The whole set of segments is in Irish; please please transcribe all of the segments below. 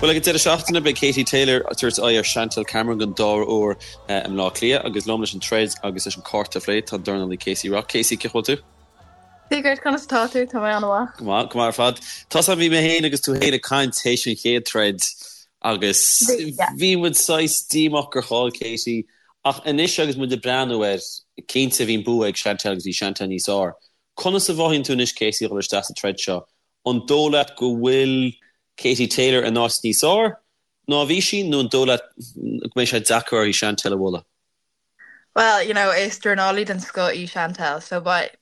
Bhuel, ag an deireadh seachtaine, beidh Katie Taylor ag tabhairt aghaidh ar Chantelle Cameron don dara huair i mBleá Cliath agus liom leis an troid agus leis an cárta a phlé tá an dornálaí Casey Rock. Casey, cén chaoi a bhfuil tú? Dia duit, conas atá tú? Tá mé an-mhaith. Go maith, go maith ar fad. Tá 's agam, bhí mé féin agus tú féin ag caint théis an chéad troid agus bhí muid saghas díomách gur chaill Katie ach anois agus muid ag breathnú air, cinnte bhí an bua ag Chantelle agus bhí Chantelle níos fearr. Conas a mhothaíonn tú anois Casey a dhul isteach sa troid seo? An dóigh leat go bhfuil Katie Taylor in áit níos fearr ná a bhí sí nó an dóigh leat go mbeidh sé deacair uirthi Chantelle a bhualadh? Well, you know, is dornálaí den scoth í Chantelle, so beidh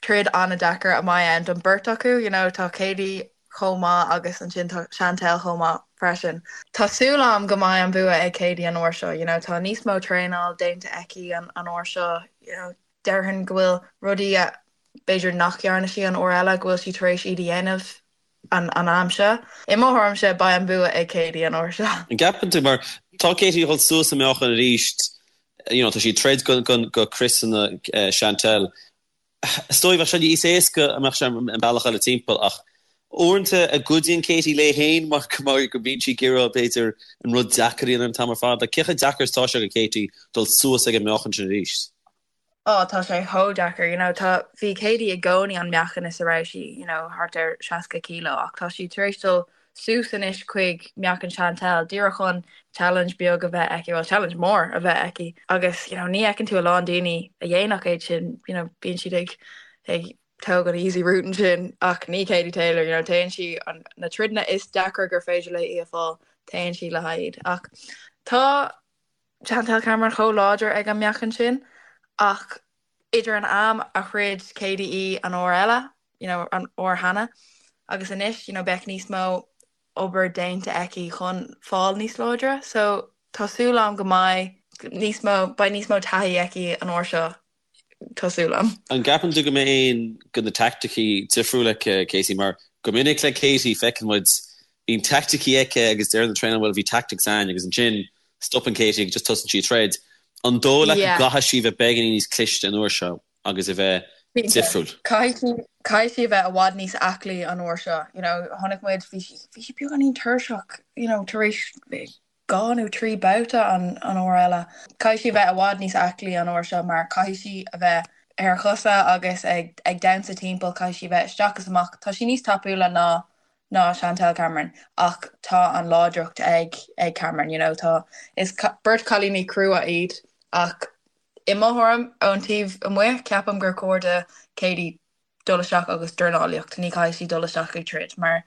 troid an-deacair a mbeidh ann don beirt acu, you know, tá Katie chomh maith agus ansin tá Chantelle chomh maith freisin. Tá súil agam go mbeidh an bua ag Katie an uair seo, you know, tá níos mó traenáil déanta aici an uair seo, you know, déarfainn go bhfuil rudaí a b'fhéidir nach dhearna sí an uair eile, go bhfuil sí tar éis iad a dhéanamh an am seo. I mo thuairimse, beidh an bua ag Katie an uair seo. An gceapann tú, mar tá Katie ag dul suas i meáchan arís, you know, tá sí ag troid go, go, go criosanna Chantelle. Is dóigh bheadh sé níos éasca dá mbeadh sé an bealach eile timpeall ach uaireanta an gcuidíonn Katie léi féin mar mar go mbíonn sí ag iarraidh b'fhéidir an rud deacair a dhéanamh an t-am ar fad. Like, cé chomh deacair is atá sé do Katie dul suas ag an meáchan sin arís? Oh, tá sé chomh deacair, you know, tá, bhí Katie i gcónaí an meáchan is a raibh sí, you know, thart ar 60 kilo ach tá sí tar éis dul suas anois chuig meáchan Chantelle díreach chun challenge beag a bheith aici, well challenge mór a bheith aici agus, you know, ní fheiceann tú a lán daoine a dhéanfadh é sin, you know, bíonn siad ag, ag tóg an easy route ansin ach ní Katie Taylor, you know, téann sí an, na troideanna is deacra gur féidir léi a fáil, téann sí le haghaidh iad ach tá Chantelle Cameron chomh láidir ag an meáchan sin ach idir an am a throid Katie í an uair eile, you know, an uair cheana agus anois, you know, beidh níos mó obair déanta aici chun fáil níos láidre so tá súil agam go mbeidh níos mó, beidh níos mó taithí aici an uair seo. Tá súil agam. An gceapann tú go mbeidh aon de na teaicticí difriúil aici, Casey? Mar go minic le Katie feiceann muid, bíonn teaicticí aici agus deireann an traenáil bhuel bhí tactics againn agus ansin stopann Katie agus just tosaíonn sí ag troid. An dóigh leat go gcaithfidh sí bheith beagáinín níos cliste an uair seo agus a bheith difriúil? Caithfidh sí, caithfidh sí a bheith i bhfad níos aclaí an uair seo. You know, chonaic muid, bhí sí, bhí sí beagáinín tuirseach, you know, tar éis 2 nó 3 babhta an uair eile. Caithfidh sí a bheith i bhfad níos aclaí an uair seo mar caithfidh sí a bheith ar a cosa agus ag ag damhsa timpeall, caithfidh sí a bheith isteach is amach. Tá sí níos tapúla ná ná Chantelle Cameron ach tá an láidreacht ag ag Cameron, you know, tá is beirt cailíní crua iad ach i mo thuairim ón taobh amuigh ceapaim gur chóir do Katie dul isteach agus dornálaíocht, ní caithfidh sí dul isteach ag troid mar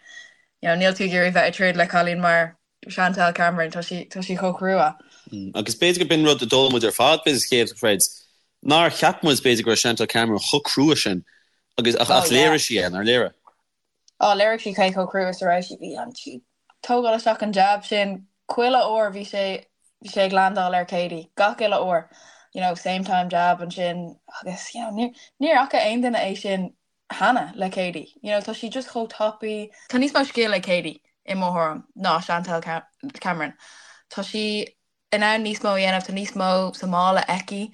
you know níl tú ag iarraidh bheith ag troid le cailín mar Chantelle Cameron, tá sí, tá sí chomh crua. Agus b'fhéidir go b'in rud a d'fhoghlaim muid ar fad, b'fhéidir sa chéad throid, nár cheap muid b'fhéidir go raibh Chantelle Cameron chomh crua sin agus ach ach léirigh sí é, nár léirigh? Ó, léirigh sí cé chomh crua is a raibh sí. Bhí an sí tógáil isteach an jab sin chuile uair bhí sé bhí sé ag landáil ar Katie gach uile uair. You know, same time jab ansin agus you know, níor níor fhaca aon duine é sin cheana le Katie. You know, tá sí just chomh tapaí. Tá níos mó scil ag Katie, i mo thuairim, ná Chantelle Cameron. Tá sí in ann níos mó a dhéanamh, tá níos mó sa mála aici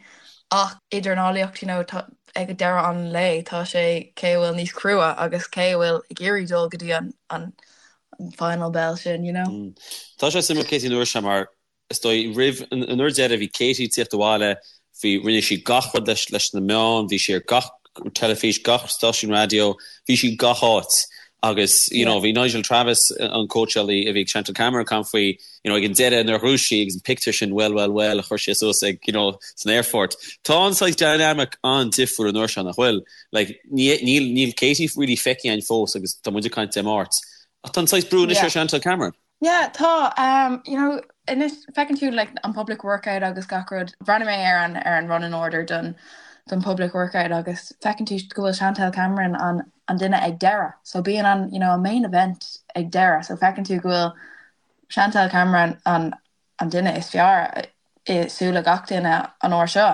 ach i ndornálaíocht, you know, tá, ag deireadh an lae, tá sé cé a bhfuil níos crua agus cé a bhfuil ag iarraidh dul go dtí an, an, an final bell sin, you know. Tá sé suimiúil Katie an uair seo mar Is dóigh, roimh an uair deiridh, bhí Katie ag tíocht abhaile, bhí, rinne sí gach rud leis, leis na meáin, bhí sí ar gach teilifís, gach stáisiún raidió, bhí sí gach áit. Agus, you know, bhí Nigel Travis, an cóitseálaí a bhí ag Chantelle Cameron, ag caint faoi, you know, ag an deireadh nuair a ghnóthaigh sí agus an pictiúr sin, well, well, well, a chuir sé suas ag, you know, san aerfort. Tá an saghas dynamic an-difriúil an uair seo, nach bhfuil? Like, ní, níl, níl Katie really feicthe againn fós agus tá muid ag caint Dé Máirt. Ach tá an saghas brú anois ar Chantelle Cameron. Yeah, tá. Um, you know, anois feiceann tú like, an public workout agus gach rud. Bhreathnaigh mé ar an, ar an running order don, don public workout agus feiceann tú go bhfuil Chantelle Cameron an, an duine ag deireadh. So bíonn an, you know, an main event ag deireadh. So feiceann tú go bhfuil Chantelle Cameron an, an duine is fearr i súile gach duine an uair seo.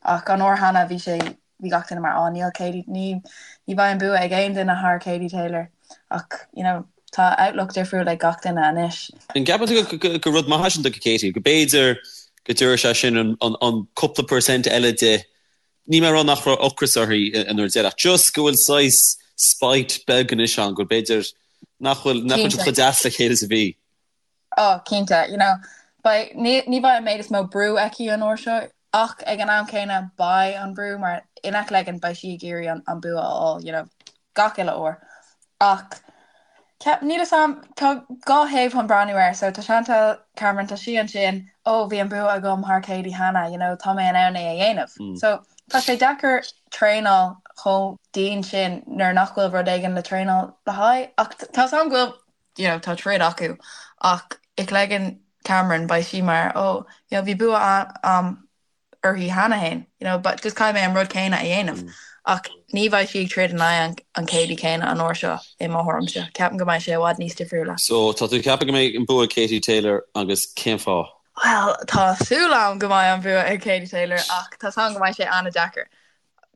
Ach an uair cheana bhí sé bhí gach duine mar, á níl Katie, ní ní bheidh an bua ag aon duine thar Katie Taylor. Ach, you know, tá outlook difriúil ag gach duine anois. An gceapann tú go gur rud maith é sin do Katie, go b'fhéidir go dtabharfaidh sé sin an an cúpla percent eile di, níl mé ag rá nach raibh ocras uirthi an uair deireadh, ach just go bhfuil saghas spite beag anois ann, go b'fhéidir nach bhfuil nach bhfuil siad chomh deas le chéile is a bhí. Oh, cinnte, you know, beidh, ní, ní bheidh an méid is mó brú aici an uair seo ach ag an am céanna beidh an brú mar in Eachléigean beidh sí ag iarraidh an, an bua a fháil, you know, gach uile uair. Ach ceap, níl 'fhios a'm, tá 2 thaobh chun breathnú air, so tá Chantelle Cameron, tá sí ansin, oh bhí an bua agam thar Katie cheana, you know, tá mé in ann é a dhéanamh. So tá sé deacair traenáil chomh dian sin nuair nach bhfuil rud éigin le traenáil le haghaidh ach tá 'fhios a'm go bhfuil you know, tá troid acu ach i gcloigeann Cameron beidh sí mar oh you know, bhí bua a'm uirthi cheana féin, you know, but just caithfidh mé an rud céanna a dhéanamh. Ach ní bheidh sí ag troid in aghaidh an, an Katie céanna an uair seo i mo thuairimse. Ceapaim go mbeidh sé i bhfad níos difriúla. So tá tú ag ceapadh go mbeidh an bua ag Katie Taylor agus cén fáth? Bhuel, tá súil a'm go mbeidh an bua ag Katie Taylor ach tá 's a'm go mbeidh sé an-deacair.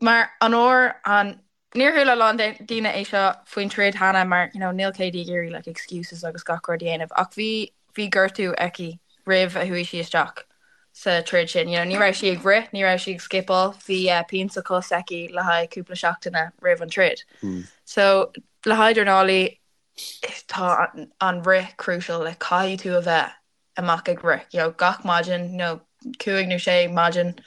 Mar an uair an Níor chuala a lán daoine é seo faoin troid cheana mar you know níl Katie ag iarraidh like excuses agus gach rud a dhéanamh ach bhí bhí gortú aici roimh a chuaigh sí isteach sa troid sin. You know ní raibh sí ag rith, ní raibh sí ag scipeáil, bhí eh, pian sa chos aici le haghaidh cúpla seachtaine roimh an troid. So le haghaidh dornálaí tá an, an rith crucial like caithfidh tú a bheith amach ag rith you know gach maidin nó cúig nó sé maidin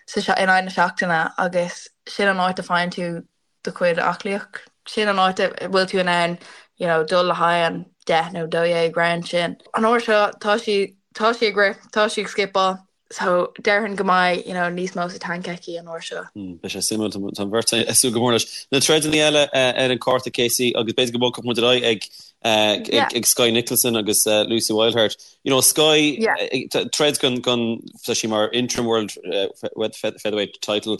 sa in aghaidh na seachtaine agus sin an áit a faigheann tú do chuid aclaíocht. Sin an áit a bhfuil tú in ann you know dul le haghaidh an 10 nó 12 round sin. An uair seo tá sí tá sí ag rith, tá sí ag scipeáil so déarfainn go mbeidh you know níos mó sa tank aici an uair seo. Beidh sé suimiúil, tá an bheirt ag súil go mór leis. Na troideanna eile ar an cárta Casey agus b'fhéidir go mbogfadh muid ar aghaidh ag ag Skye Nicolson agus Lucy Wildheart. You know, Skye, troid don don tá sí mar interim world featherweight title.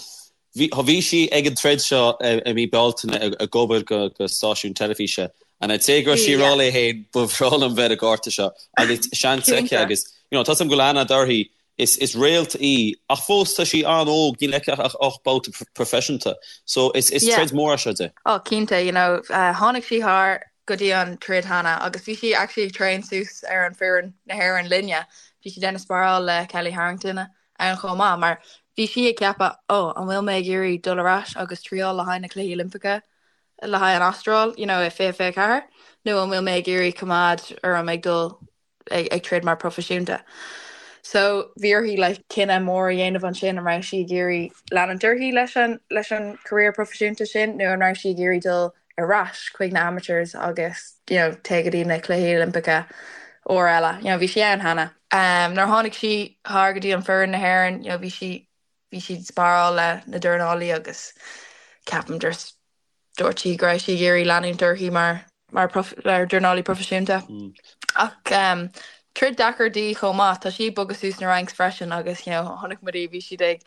Bhí bhí sí ag an troid seo i mí Bealtaine ag obair go go stáisiún teilifíse and I'd say go raibh sí ag rá léi féin ba bhreá liom bheith ar an gcárta seo agus seans aici agus you know tá 's agam go bhfuil aithne uirthi Is is réalt í, ach fós tá sí an-óg, níl aici ach 8 babhta proifisiúnta. So is is troid mór é seo di. Oh cinnte, you know, tháinig sí thar go dtí an troid cheana agus bhí sí actually ag train suas ar an foireann na hÉireann linne. Bhí sí déanamh sparáil le Kellie Harrington ann chomh maith mar bhí sí ag ceapadh, oh, an bhfuil mé ag iarraidh dul ar ais agus triáil le haghaidh na Cluichí Oilimpeacha le haghaidh an Astráil, you know, i 2024 nó an bhfuil mé ag iarraidh coimeád orm ag dul ag troid mar proifisiúnta. So bhí uirthi like cinneadh mór a dhéanamh ansin an raibh sí ag iarraidh leanúint uirthi leis an leis an career proifisiúnta sin nó an raibh sí ag iarraidh dul ar ais chuig na amateurs agus you know téigh go dtí na Cluichí Oilimpeacha uair eile. You know bhí sí ann cheana. Um, nuair a tháinig sí thar go dtí an foireann na hÉireann, you know bhí sí bhí sí ag sparáil le na dornálaí agus ceapaim just dúirt sí go raibh sí ag iarraidh leanúint uirthi mar mar mar dornálaí proifisiúnta. Ach um, troid deacair di chomh maith, tá sí ag bogadh suas na ranks freisin agus you know, chonaic muid í bhí siad ag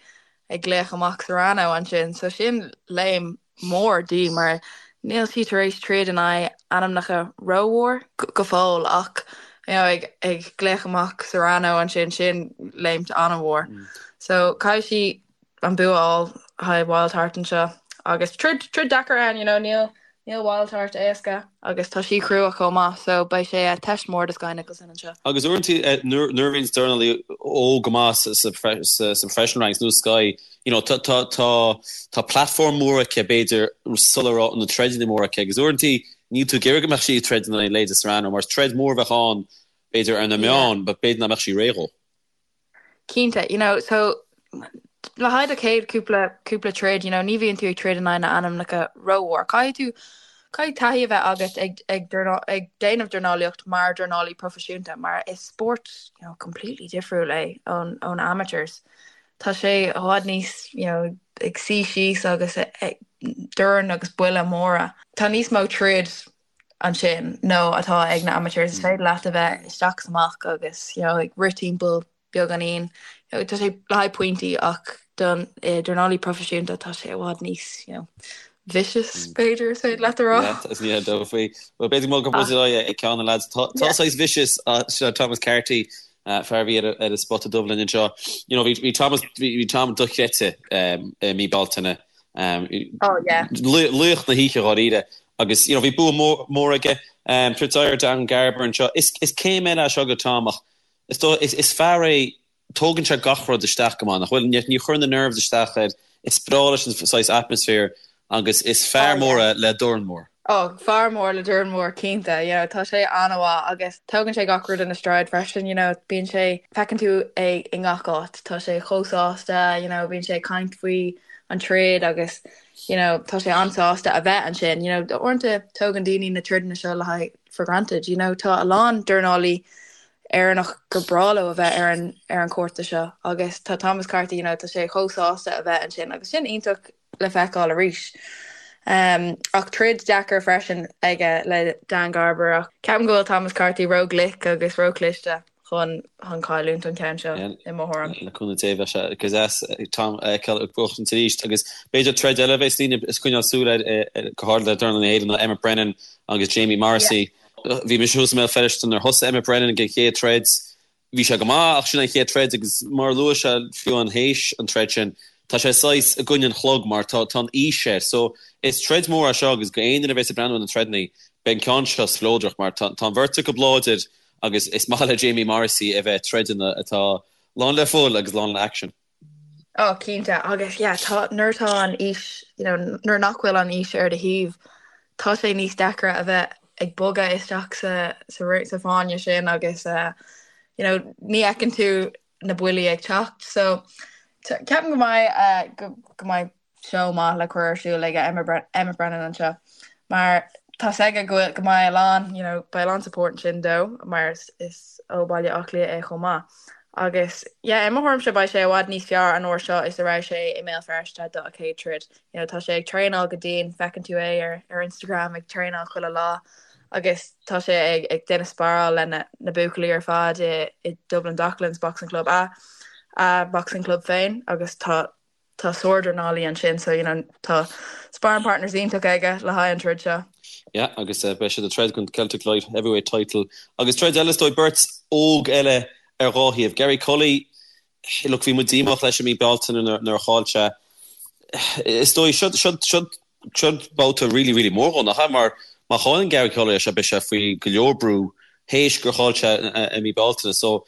ag glaoch amach Serrano ansin, so sin léim mór di mar níl sí tar éis troid in aghaidh ainmneacha rómhór go fóill ach you know, ag ag glaoch amach Serrano ansin sin léimt an-mhór. So caithfidh sí an bua a fháil le haghaidh Wildheart anseo agus troid troid deacair ann you know níl níl Wildheart éasca agus tá sí crua chomh maith so beidh sé teist mór do Skye Nicolson anseo. Agus uaireanta nuair a bhíonn dornálaí óg go maith sa sa sa professional ranks nó Skye you know tá tá tá tá platform mór aici b'fhéidir sula raibh na troideanna móra aici agus uaireanta níl tú ag iarraidh go mbeadh sí ag troid in aghaidh leithéide Serrano mar is troid mór a bheadh ann b'fhéidir ar na meáin but b'fhéidir nach mbeadh sí réidh dhó. Cinnte, you know, so le haghaidh do chéad cúpla cúpla troid, you know, ní bhíonn tú ag troid in aghaidh na ainmneacha rómhór. Caithfidh tú caithfidh taithí a bheith agat ag ag ag déanamh dornálaíocht mar dornálaí proifisiúnta mar is spórt you know, completely difriúil é ón ón amateurs. Tá sé i bhfad níos you know, ag suí síos agus ag dorn agus buille móra. Tá níos mó troid ansin ná atá ag na amateurs. Is féidir leat a bheith isteach is amach agus you know, ag rith timpeall beagáinín. You know, tá sé le haghaidh pointí ach don eh, dornálaí proifisiúnta tá sé i bhfad níos you know, vicious b'fhéidir is féidir leat a rá. Yeah, is ní dó faoi. Well b'fhéidir go mbogfaidh muid ar aghaidh ag ceann na lads. Tá tá saghas vicious uh, seo Thomas Carty uh, fear a bhí ar ar an spota dubh linn anseo. You know, bhí bhí Thomas bhí bhí Tom dochreidte um, i mí Bealtaine. Um, Oh yeah. Laoch na hoíche dháiríre. Agus you know bhí bua mór aige troid ar Dan Garber anseo. Is is céim eile é seo do Tom ach is dóigh is is fear é tógann sé gach rud isteach go maith nach bhfuil? Ní chuireann na nerves isteach air. Is breá leis an saghas atmaisféar agus is fear mór é le dorn mór. Oh, fear mór le dorn mór, cinnte, you know, tá sé an-mhaith agus tógann sé gach rud ina stride freisin, you know, bíonn sé, feiceann tú é i ngach áit, tá sé chomh sásta, you know, bíonn sé ag caint faoi an troid agus, you know, tá sé an-sásta a bheith ansin, you know, uaireanta tógann daoine na troideanna seo le haghaidh for granted, you know, tá a lán dornálaí Éireannach gur breá leo a bheith ar an ar an cárta seo agus tá Thomas Carthy, you know, tá sé chomh sásta a bheith ansin agus sin iontach le feiceáil arís. Ach troid deacair freisin aige le Dan Garber ach ceapaim go bhfuil Thomas Carthy ró-ghlic agus ró-chliste chun chun cailliúint an ceann seo, i mo thuairim. Le cúnamh Dé bheadh sé go deas Tom a fheiceáil ag buachaint arís agus b'fhéidir troid eile a bheas daoine ag coinneáil súil air go háirithe le dornálaithe na hÉireann ná Emmet Brennan agus Jamie Morrissey. Bhí mise thuas i mBéal Feirste nuair a thosaigh Emmet Brennan ag an chéad troid. Bhí sé go maith ach sin an chéad troid agus mar a luaigh sé fiú an théis an troid sin, tá sé saghas i gcoinne an chlog mar tá tá an aois air. So is troid mór é seo agus go aon duine a bheas ag breathnú ar na troideanna, beidh an ceann seo spleodrach mar tá tá an bheirt acu láidir agus is maith le Jamie Morrissey a bheith ag troideanna atá lán le fuil agus lán le action. Oh cinnte agus yeah tá nuair atá an aois you know nuair nach bhfuil an aois ar do thaobh tá sé níos deacra a bheith ag bogadh isteach sa sa sa fáinne sin agus uh, you know ní fheiceann tú na buillí ag teacht so ceapaim go mbeidh uh, go, go mbeidh seó maith le cur ar siúl ag Emmet Brennan anseo mar tá 's aige go bhfuil go mbeidh a lán you know beidh a lán support ansin dó mar is is ó Baile Átha Cliath é chomh maith. Agus yeah i mo thuairimse beidh sé i bhfad níos fearr an uair seo is a raibh sé i mBéal Feirste do a chéad troid. You know tá sé ag traenáil go dian feiceann tú é ar ar Instagram ag traenáil chuile lá agus tá sé ag ag déanamh sparáil le na na buachaillí ar fad i i Dublin Docklands Boxing Club a a boxing club féin agus tá Tá sárdhornálaí ansin so you know tá sparring partners iontach aige le haghaidh an troid seo. Yeah agus beidh siad ag troid don Celtic Light Heavyweight title agus troid eile is dóigh beirt óg eile ar dhá thaobh. Gary Cully, look bhí muid díomách leis i mí Bealtaine nuair a chaill sé. Is dóigh seo seo seo Seo babhta really really mór dhó, nach ea? Mar má chailleann Gary Cully é seo beidh sé faoi go leor brú théis gur chaill sé i mí Bealtaine. So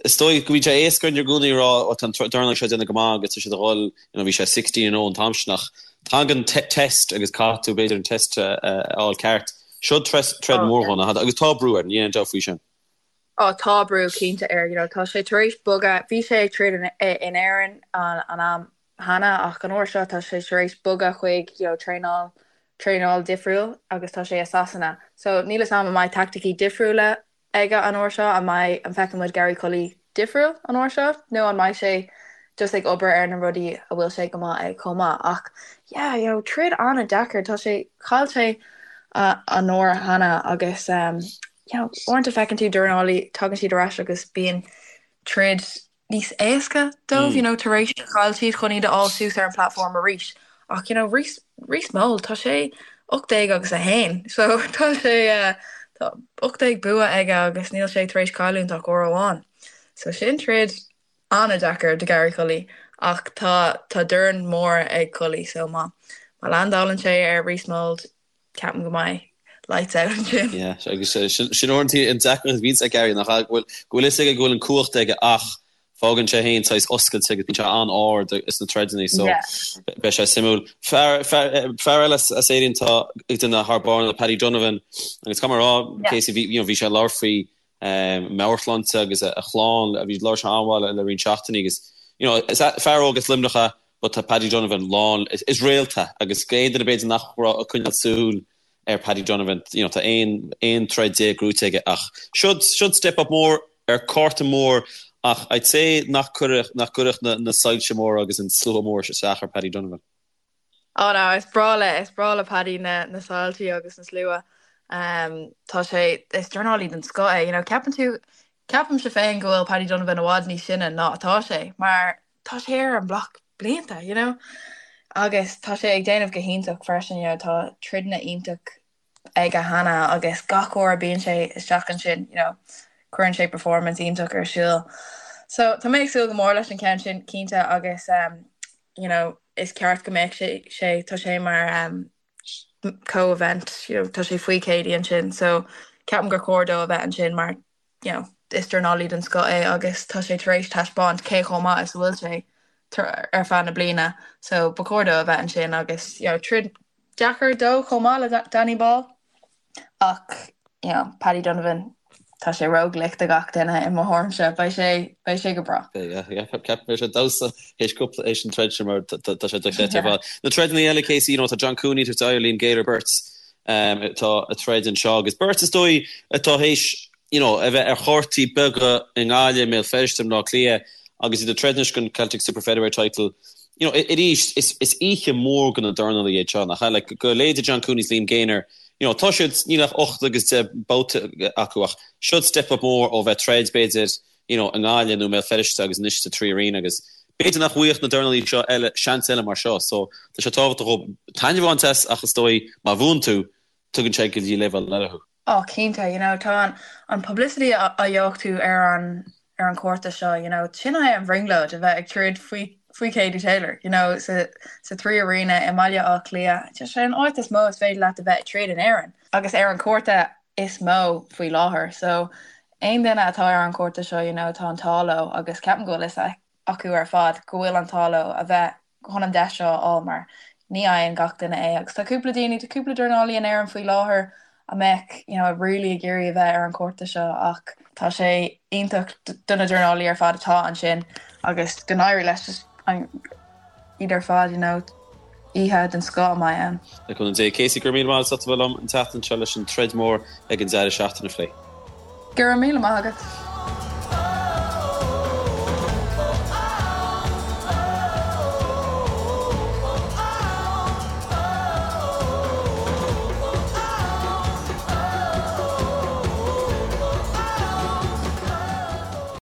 is dóigh go bhíonn sé éasca orainn i gcónaí a rá oh tá an dornálaí seo ag déanamh go maith agus tá siad a dhul, you know bhí sé 16-0 an t-am sin ach tagann test agus caithfidh tú b'fhéidir an test a fháil ceart. Seo troid mór dhó, nach ea? Agus tá brú air, níl aon dabht faoi sin. Á tá brú cinnte air, you know tá sé tar éis bogadh, bhí sé ag troid in Éirinn an am cheana ach an uair seo tá sé tar éis bogadh chuig you know traenáil traenáil difriúil agus tá sé i Sasana. So níl 'fhios a'm an mbeidh taicticí difriúla aige an uair seo, an mbeidh an bhfeicfidh muid Gary Cully difriúil an uair seo nó an mbeidh sé just ag obair ar na rudaí a bhfuil sé go maith ag chomh maith ach yeah you know troid an-deacair tá sé chaill sé an uair cheana agus um, you know uaireanta feiceann tú dornálaí tagann siad ar ais agus bíonn troid níos éasca dóibh, you know, tar éis gur chaill siad chun iad a fháil suas ar an platform arís. Ach, you know, Rhys, Rhys Mould, tá sé 18 agus 1, so tá sé, tá 18 bua aige agus níl sé tar éis cailliúint ach uair amháin. So sin troid an-deacair do Gary Cully ach tá, tá dorn mór ag Cully so má, má landálann sé ar Rhys Mould, Ceapaim go mbeidh lights out ansin. Yeah, agus sin uaireanta an deacracht a bhíonns ag Gary, nach ea? Go bhfuil, go bhfuil fhios aige go bhfuil an cumhacht aige ach fágann sé féin saghas oscailte agus bíonn sé an-ard sna troideanna so Yeah. beidh sé suimiúil. Fear, fear, fear eile as, as Éirinn atá ag déanamh thar barr ná Paddy Donovan agus caithfidh mé a rá, Yeah. Casey, bhí, you know, bhí sé ag labhairt faoi meabhairshláinte agus a chlann, bhí labhair sé an-mhaith le roinnt seachtainí agus you know, is fear óg as Luimneach é but tá Paddy Donovan lán, is réalta agus aon duine b'fhéidir nach raibh ag coinneáil súil ar Paddy Donovan, you know, tá 11 aon troid gnóite aige ach siod, siod step up mór ar cárta mór ach I'd say nach cuirfeadh, nach gcuirfeadh na, na soilse móra agus an slua mór isteach ar Paddy Donovan. Oh no, is breá le, is breá le Paddy na, na soilsí agus na slua. Um, tá sé, is dornálaí den scoth é, you know, ceapann tú, ceapaimse féin go bhfuil Paddy Donovan i bhfad níos sine ná atá sé, mar tá sé ar an mblock blianta, you know, agus tá sé ag déanamh go hiontach freisin, you know, tá troideanna iontach aige cheana agus gach uair a bíonn sé isteach ansin, you know, cuireann sé performance iontach ar siúl. So tá mé ag súil go mór leis an ceann sin cinnte agus um, you know, is ceart go mbeadh sé sé tá sé mar um, co-event, you know, tá sé faoi Katie ansin, so ceapaim gur chóir dó a bheith ansin mar you know, is dornálaí den scoth é agus tá sé tar éis taispeáint cé chomh maith is a bhfuil sé ar feadh na bliana so ba chóir dó a bheith ansin agus you know, troid. deacair dó chomh maith le Danny Ball ach you know Paddy Donovan tá sé ró-ghlic do gach duine i mo thuairimse, beidh sé beidh sé go breá. Beidh yeah ceapaim beidh sé ag damhsa théis cúpla théis an troid sin mar tá sé dochreidte ar fad. Na troideanna eile Casey you know tá John Cooney ag tabhairt aghaidh ar Liam Gaynor beirt atá ag troid anseo agus beirt is dóigh atá théis you know, a bheith ar chártaí beaga i nGaillimh, i mBéal Feirste, i mBleá Cliath agus iad ag troid anois don Celtic Super Featherweight title. You know, arís, is, is oíche mhór do na dornálaithe iad seo, nach ea? Like, do leithéidí John Cooney is Liam Gaynor, you know, tá siad, níl ach 8 agus 10 babhta acu ach siod step up mór ó bheith ag troid, b'fhéidir, you know, i nGaillimh nó i mBéal Feirste agus anois sa 3 Arena agus b'fhéidir nach bhfaigheadh na dornálaithe seo eile seans eile mar seo. So, tá sé tábhachtach dóibh taitneamh a bhaint as ach is dóigh má bhuann tú, tugann sé go dtí leibhéal eile thú. Oh cinnte, you know, tá an an publicity a a gheobhaidh tú ar an ar an cárta seo, you know, sin é an bhrionglóid a bheith ag troid faoi faoi Katie Taylor, you know, sa sa 3 Arena i mBaile Átha Cliath, just an áit is mó is féidir leat a bheith ag troid in Éirinn agus ar an cárta is mó faoi láthair. So aon duine atá ar an cárta seo, you know, tá an t-ádh leo agus ceapaim go bhfuil fhios acu ar fad go bhfuil an t-ádh leo a bheith chun an deis seo a fháil mar ní fhaigheann gach duine é agus tá cúpla daoine, tá cúpla dornálaí in Éirinn faoi láthair a mbeadh you know really ag iarraidh a bheith ar an cárta seo ach tá sé iontach do na dornálaí ar fad atá ansin agus go n-éirí leis just an iad ar fad you know oíche den scoth a mbeidh ann. Le cúnamh Dé. Casey, go raibh míle maith agat as ucht a bheith liom an tseachtain seo leis an troid mór ag an deireadh seachtaine a phlé. Go raibh míle maith agat.